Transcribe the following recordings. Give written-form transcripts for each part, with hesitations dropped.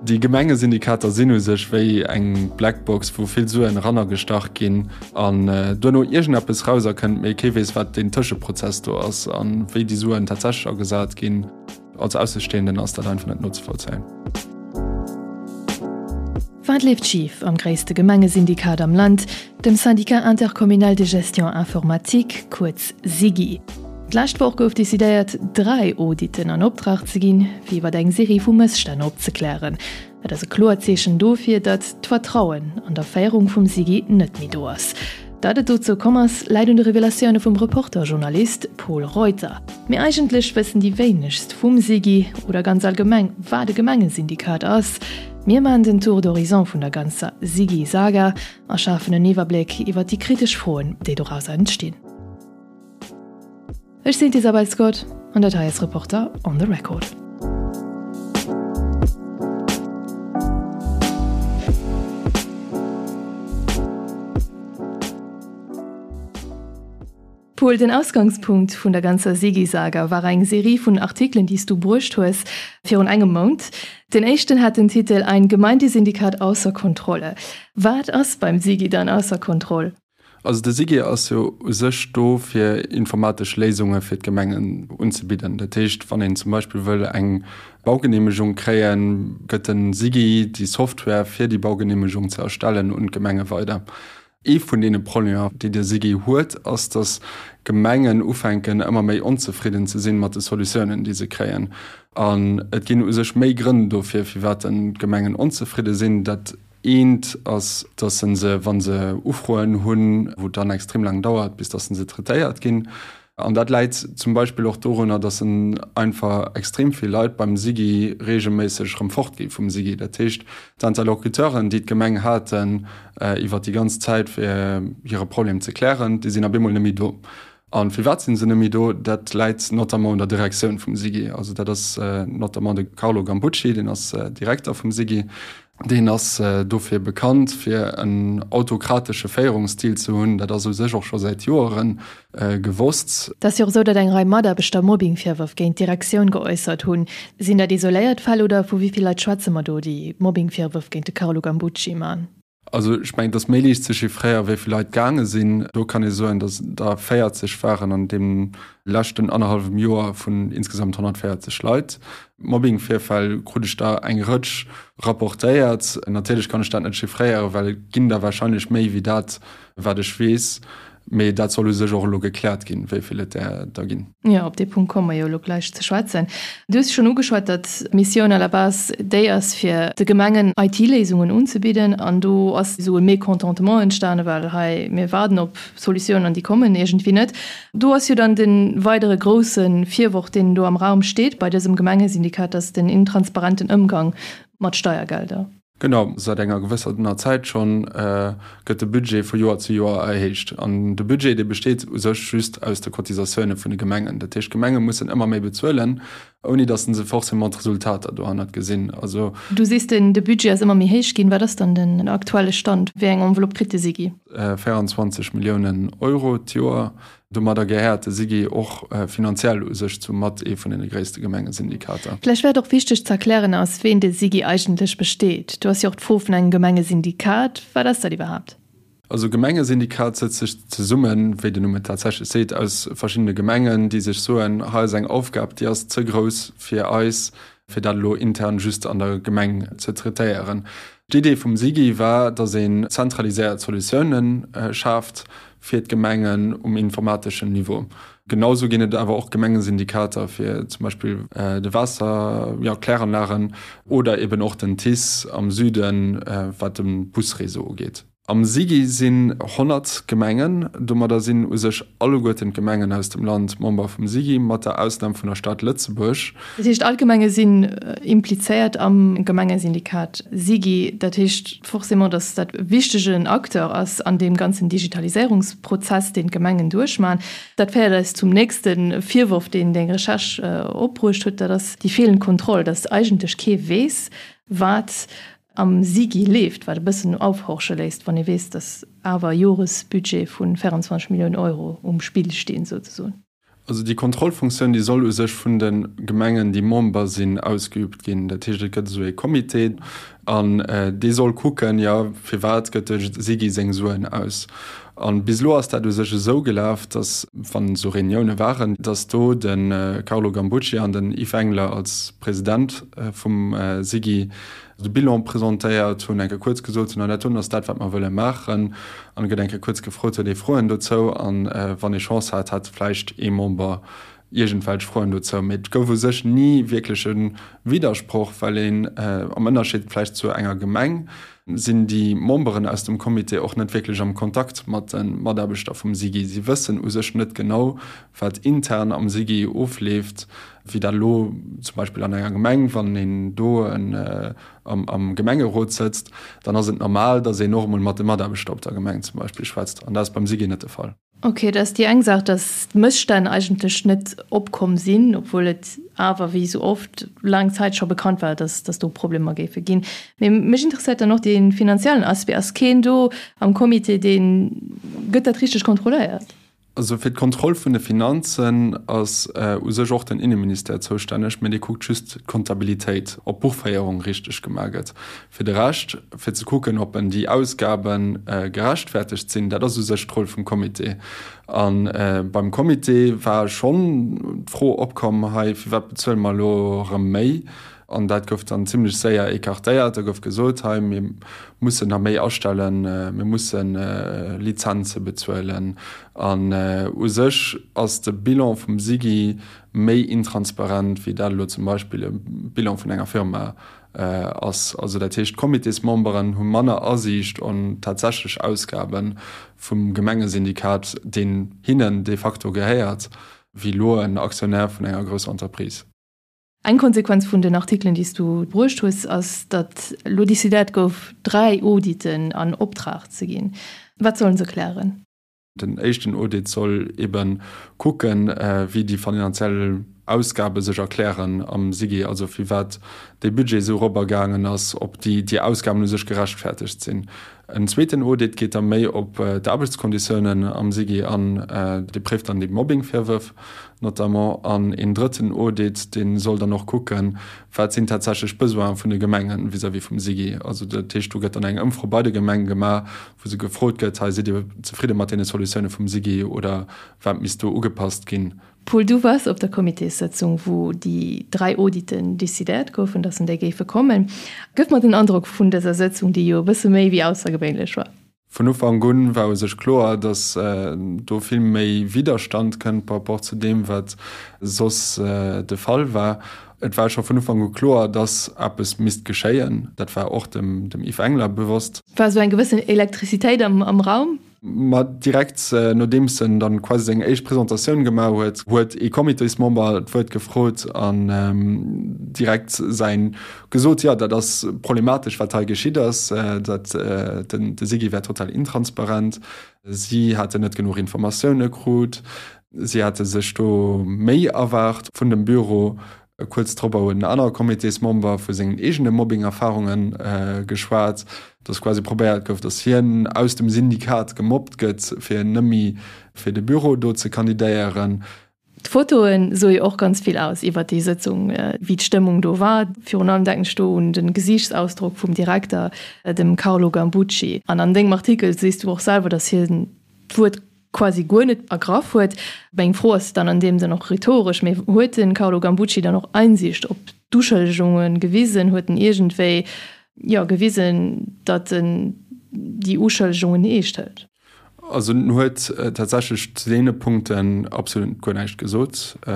Déi Gemengesyndikater sinn u sech wéi eng Blackbox, wou vill Suen erannergestach ginn an duerno iergendeppes rauserkënnt, mee kee weess, wat deen Tëscheprozess do ass a wéi déi Suen tatsächlech agesat ginn. Als Aussestehenden ass dat einfach net nozevollzéien. Wat leeft schif am gréisste Gemengesyndikat am Land, dem Syndicat intercommunal de gestion informatique, kuerz SIGI? D'lescht Woch gouf decidéiert, 3 Auditen an Optrag ze ginn, fir iwwer eng Serie vu Mësstänn opzeklären. Et ass e kloert Zeechen dofir, datt d'Vertrauen an der Féierung vum SIGI net méi do ass. Datt et dozou komm ass, läit un de Revelatioune vum Reporter-Journalist Pol Reuter. Mee eigentlech wëssen déi wéinegst vum SIGI oder ganz allgemeng, wat e Gemengesyndikat ass. Mir maachen den Tour d'horizon vun der ganzer SIGI-Saga a schafen en Iwwerbléck iwwer déi kritesch Froen, déi dorauser entstinn. Ech sinn d'Isabel Scott an dat hei ass Reporter on the Record. Paul, den Ausgangspunkt vun der ganzer Sigi-Saga war eng Serie vun Artikelen, déi s du bruecht hues virun engem Mount. Den éischten hat den Titel Ein Gemeindesyndikat ausser Kontrolle. Wat ass beim Sigi dann ausser Kontroll? Also de SIGI ass jo u sech do fir informatesch Léisunge fir d'Gemengen unzebidden. Dat heescht, wann een zum Beispill wëll eng Baugeneemegung kréien, gëtt de SIGI déi Software fir déi Baugeneemegung ze erstellen un d'Gemenge weider. Ee vun deene Problemer, déi de SIGI huet, ass, datt Gemengen ufänken ëmmer méi onzefridden ze sinn mat de Solutiounen, déi se kréien. An et ginn u sech méi Grënn dofir, firwat d'Gemengen onzefridde sinn. Dat Eent ass, dass se se, wa se Ufroen hunn, wou et dann extrem laang dauert, bis dass se traitéiert ginn. An dat läit zum Beispill och dorunner, dass einfach extrem vill Leit beim SIGI regelméisseg erëm fortgi vum SIGI. Dat heescht, d'Interlocuteuren, déi d'Gemeng haten iwwert déi ganz Zäit, fir hire Problem ze klären, déi sinn op eemol net méi do. A firwat sinn se net méi do? Dat läit notamment un der Direktioun vum SIGI. Also dat ass notamment de Carlo Gambucci, deen ass Direkter vum SIGI. Deen ass dofir bekannt, fir en autokratesche Féierungsstil ze hunn. Dat ass u sech och scho säit Joere gewosst. Et ass jo och esou, datt eng Rei Mataarbechter Mobbingvirwërf géint d'Direktioun geäussert hunn. Sinn dat isoléiert Fäll oder vu wéi vill Leit schwätze mer do, déi Mobbingvirwërf géint de Carlo Gambucci man? Also ech mengen, et ass méi liicht ze chiffréieren, wéi vill Leit gaange sinn. Do kann ee soen, datt et der 40 waren an deem leschten annerhallwem Joer vun insgesamt 140 Leit. Mobbing-Virfäll krut ech der eng Rëtsch rapportéiert. Natierlech kann ech dat net chiffréieren, well et ginn der warscheinlech méi wéi dat, wat ech weess. Mee dat soll u sech och elo gekläert ginn, wéi vill et där der ginn. Jo, op dee Punkt komme mer jo elo gläich ze schwätzen. Du hues schonn ugeschwat, datt d'Missioun à la base déi ass, fir de Gemengen IT-Léisungen unzebidden. An do ass esou e Mécontentement entstanen, well hei, mir waarden op Solutiounen an déi kommen iergendwéi net. Do ass jo dann de weidere grousse Virworf, deen do am Raum steet bei dësem Gemengesyndikat, datt den intransparenten Ëmgang mat Steiergelder. Genau, säit enger gewëssener Zäit schonn gëtt de Budget vu Joer zu Joer erhéicht. An de Budget, dee besteet u sech just aus de Cotisatioune vun de Gemengen. Dat heescht, d'Gemenge mussen ëmmer méi bezuelen, ouni datt se forcément d'Resultater dohannert gesinn. Also. Du sees, de Budget ass ëmmer méi héich ginn. Wat ass dann den aktuelle Stand? Wéi eng Enveloppe kritt de SIGI? 24 Milliounen Euro d'Joer. Domadder gehéiert de SIGI och finanziell u sech zu mat ee vun deene gréisste Gemengesyndikater. Vläicht wär et och wichteg ze erklären, aus ween de SIGI eigentlech besteet. Du ass jo och d'Fro vun engem Gemengesyndikat. Wat ass dat iwwerhaapt? Also e Gemengesyndikat sëtzt sech zesummen, wéi den Numm et tatsächlech seet, aus verschiddene Gemengen, déi sech soen, hei ass eng Aufgab, déi ass ze grouss fir eis, fir dat elo intern just an der Gemeng ze traitéieren. D'Idee vum SIGI war, datt een zentraliséiert Solutiounen schaaft fir d'Gemengen um informateschen Niveau. Genau sou ginn et awer och Gemengesyndikater fir zum Beispill de Waasser, jo, Kläranlagen oder eben och den TICE am Süden, wat de Busreseau ugeet. Am SIGI sinn 100 Gemengen. Domadder sinn u sech alleguerten d'Gemengen aus dem Land Member vum SIGI, mat der Ausnam vun der Stad Lëtzebuerg. Dat heescht, all d'Gemenge sinn implizéiert am Gemengesyndikat SIGI. Dat heescht forcément, datt dat e wichtegen Acteur ass an deem ganzen Digitaliséierungsprozess, deen d'Gemengen duerchmachen. Dat féiert eis zum nächste Virworf, deen deng Recherche opbruecht huet, dat ass déi feelend Kontroll, datt eigentlech kee weess, wat am SIGI leeft, wat e bëssen aufhorche léisst, wann ee weess, datt awer e Joresbudget vu 24 Milliounen Euro um Spill stinn, souzesoen. Also déi Kontrollfunktioun, déi soll u sech vun de Gemengen, déi Member sinn, ausgeübt ginn. Dat heescht, et gëtt esou ee Comité an dee soll kucken, jo, firwat gëtt de SIGI seng Suen aus. A bis elo ass dat u sech esou gelaf, datt, wann esou Reunioune waren, datt do de Carlo Gambucci an den Yves Engler als President vum SIGI de Bilan presentéiert hunn, eng Kéier kuerz gesot hunn, an dat doen ass dat, wat mer wëlle maachen. An et gëtt eng Kéier kuerz gefrot, huet ee Froen dozou? An wann ee Chance hat, hat vläicht ee Member iergendwelch Froen dozou. Mee et gouf u sech ni wierklech e Widdersproch, well een, am Ënnerscheed vläicht zu enger Gemeng, sinn déi Memberen aus dem Comité och net wierklech am Kontakt mat de Mataarbechter vum SIGI. Si wëssen u sech net genau, wat intern am SIGI ofleeft. Wéi dat elo zum Beispill an enger Gemeng, wann een do am Gemengerot sëtzt, dann ass et normal, datt een och emol mat de Mataarbechter op der Gemeng zum Beispill schwätzt. An dat ass beim SIGI net de Fall. Ok, dat ass déi eng Saach, datt d'Mësstänn eigentlech net opkomm sinn, obwuel et awer, wéi esou oft, laang Zäit scho bekannt war, datt datt do Problemer géife ginn. Mee mech interesséiert dann och dee finanziellen Aspect. Ass keen do am Comité, deen, gëtt dat richteg kontrolléiert? Also fir d'Kontroll vun de Finanzen ass u sech och den Inneministère zoustänneg, mä dee kuckt just d'Kontabilitéit, ob d'Buchféierung richteg gemaach gëtt. Fir de Rescht, fir ze kucken, ob en déi Ausgabe gerechtfertegt sinn, dat ass u sech d'Roll vum Comité. A beim Comité war schonn d'Fro opkomm, hei, firwat bezuele mer elo erëm méi? An dat gouf dann zimlech séier écartéiert. Da gouf gesot, hei, mir mussen nach méi astellen, mir musse Lizenze bezuelen. An u sech ass de Bilan vum SIGI méi intransparent, wéi dat elo zum Beispill e Bilan vun enger Firma ass. Also dat heescht, d'Comitésmemberen hu manner Asiicht an tatsächlech Ausgabe vum Gemengesyndikat, deen hinnen de facto gehéiert, wéi elo en Aktionär vun enger grousser Entreprise. Eng Konsequenz vun den Artikelen, déi s du bruecht hues, ass, datt elo decidéiert gouf, 3 Auditen an Optrag ze ginn. Wat sollen se klären? Den éischten Audit soll ebe kucken, wéi déi finanziell Ausgabe sech erklären am SIGI, also firwat dee Budget esou eropergaangen ass, ob déi Ausgaben u sech gerechtfertegt sinn. En zweeten Audit geet da méi op d'Aarbechtskonditiounen am SIGI an, dee préift dann déi Mobbing-Virwërf notamment. An een drëtten Audit, dee soll dann och kucken, wat sinn tatsächlech d'Besoine vun de Gemenge vis-à-vis vum SIGI. Also dat heescht, do gëtt dann eng Ëmfro bei de Gemenge gemaach, wou se gefrot gëtt, hei sidd Dir zefridde mat deene Solutioune vum SIGI oder wat misst do ugepasst ginn? Paul, du waars op der Comitéssëtzung, wou déi 3 Auditen decidéiert goufen, dass en déi géife kommen. Gëff mer den Androck vun dëser Sëtzung, déi jo e bësse méi wéi aussergewéinlech war. Vun Ufank un war u sech kloer, dass do vill méi Widderstand kënnt par rapport zu deem, wat soss de Fall war. Et war scho vun Ufank u kloer, dass eppes misst geschéien. Dat war och dem Yves Engler bewosst. War esou eng gewëssen Elektrizitéit am Raum? Ma direkt nodeems en dann quasi seng éischt Presentatioun gemaach huet, huet ee Comitésmember d'Wuert gefrot an direkt säin gesot, jo dat ass problematesch wat hei geschitt ass, dat den de SIGI wär total intransparent, si hätten net genuch Informatioune krut, si hätte sech do méi erwaart vun dem Büro. Kuerz drop huet en anere Comitésmember vu sengen eegene Mobbing-Erfarunge geschwat, dass quasi probéiert gouf, dass hien aus dem Syndikat gemobbt gëtt, fir net méi fir de Büro do ze kandidéieren. D'Fotoe soe jo och ganz vill aus iwwert déi Sëtzung, wéi d'Stëmmung do war. Virun allem denken ech do un de Gesiichtsausdrock vum Direkter, dem Carlo Gambucci. An an dengem Artikel sees du och selwer, dass hien d'Wuert quasi guer net ergraff huet. Meng Fro ass dann an deem Sënn och rhetoresch, mee huet de Carlo Gambucci dann och Einsicht op d'Uschëllegunge gewisen? Huet en iergendwéi, jo, gewisen, datt en déi Uschëllegungen eescht hëlt? Also en huet tatsächlech zu deene Punkten absolut guer näischt gesot. E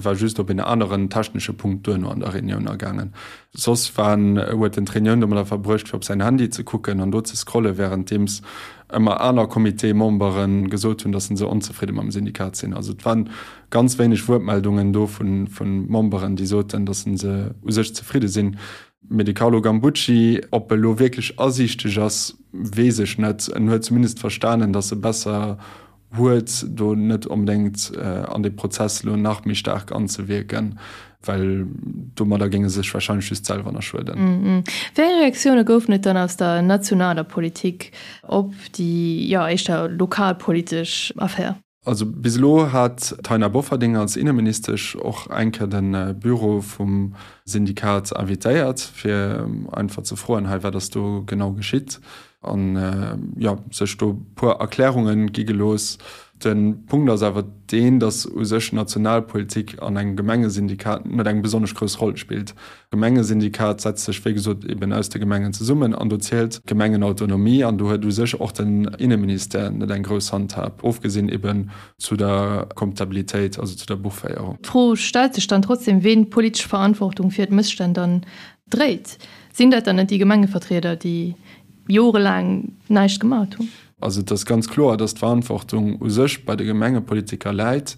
war just op een aneren technesche Punkt duerno an der Reunioun agaangen. Soss war en, huet en d'Reunioun domadder verbruecht, fir op säin Handy ze kucken an do ze scrollen, wärenddeems ëmmer aner Comitésmembere gesot hunn, datt se onzefridde mam Syndikat sinn. Also et waren ganz wéineg Wuertmeldungen do vu Memberen, déi soten, datt se u sech zefridde sinn. Mee de Carlo Gambucci, ob e lo wierklech asiichteg ass, weess ech net. En huet zumindest verstanen, datt e besser huet, do net onbedéngt an dee Prozess elo nach méi staark anzewierken, well domadder géing e sech warscheinlech just selwer nach schueden. Wéi eng Reaktioune goufen et dann aus der nationaler Politik op déi, jo, éischter lokalpolitesch Affär? Also bis elo hat d'Taina Bofferding als Inneministesch och eng Kéier de Büro vum Syndikat invitéiert, fir einfach ze froen, hei wat ass do genau geschitt an jo sech do puer Erklärunge gi gelooss. De Punkt ass awer deen, datt u sech Nationalpolitik an engem Gemengesyndikat net eng besonnesch grouss Roll spillt. D'Gemengesyndikat setzt sech wéi gesot eben aus de Gemengen zesummen an do zielt d'Gemengenautonomie an do huet u sech och den Inneministère net eng grouss Handhab, ofgesinn eben zu der Comptabilitéit, also zu der Buchféierung. D'Fro stellt sech dann trotzdem, ween d'politesch Verantwortung fir d'Mësstänn dann dréit. Sinn dat dann net déi Gemengevertrieder, déi jorelaang näischt gemat hunn? Also et ass ganz kloer, dass d'Verantwortung u sech bei de Gemengepolitiker läit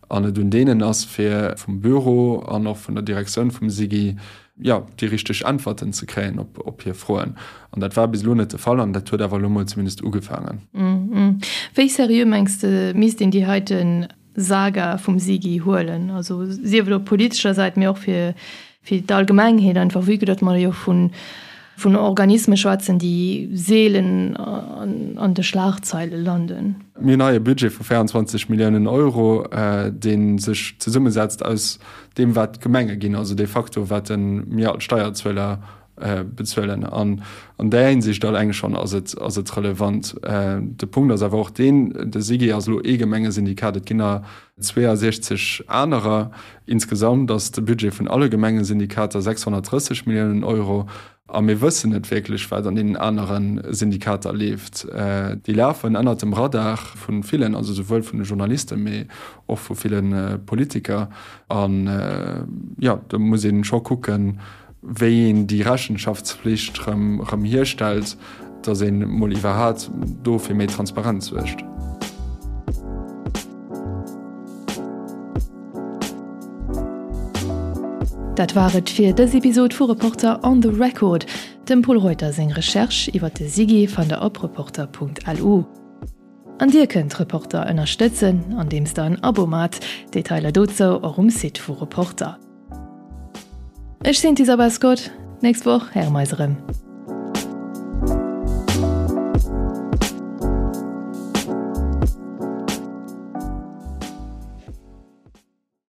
an et un deenen ass, fir vum Büro an och vun der Direktioun vum SIGI, jo, déi richteg Äntwerten ze kréien op hir Froen. An dat war bis elo net de Fall an dat huet awer elo mol zumindest ugefaangen. Wéi seriö mengs de misst een déi heiten Saga vum SIGI huelen, also sief et op politescher Säit, mee och fir fir d'Allgemengheet einfach, vue que datt mer jo vun vun Organisme schwätzen, déi seelen an de Schlagzeile landen. Mir hunn hei e Budget vu 24 Milliounen Euro, dee sech zesummesetzt aus deem, wat d'Gemenge ginn, also de facto wat mir als Steierzueler bezuelen. An an där Hinsicht alleng schonn ass et ass et relevant. De Punkt ass awer och deen, de SIGI ass elo ee Gemengesyndikat, et ginn der 62 anerer. Insgesamt ass de Budget vun alle Gemengesyndikater 630 Milliounen Euro. A mir wëssen net wierklech, wat an deenen anere Syndikater leeft. Déi lafen ënnert dem Radar vu villen, also souwuel vun de Journalisten, mee och vu ville Politiker. An, jo, do muss ee scho kucken, wéi een déi Rechenschaftspflicht rëm hierstellt, datt ee mol iwwerhat do fir méi Transparenz suergt. Dat war et fir dës Episod vu Reporter on the Record. Dem Pol Reuter seng Recherche iwwer de SIGI fannt der op reporter.lu. An dir kënnt Reporter ënnerstëtzen, andeems der en Abo maacht. Detailer dozou och um Site vu Reporter. Ech sinn d'Isabel Scott, nächst Woch héiere mer eis erëm.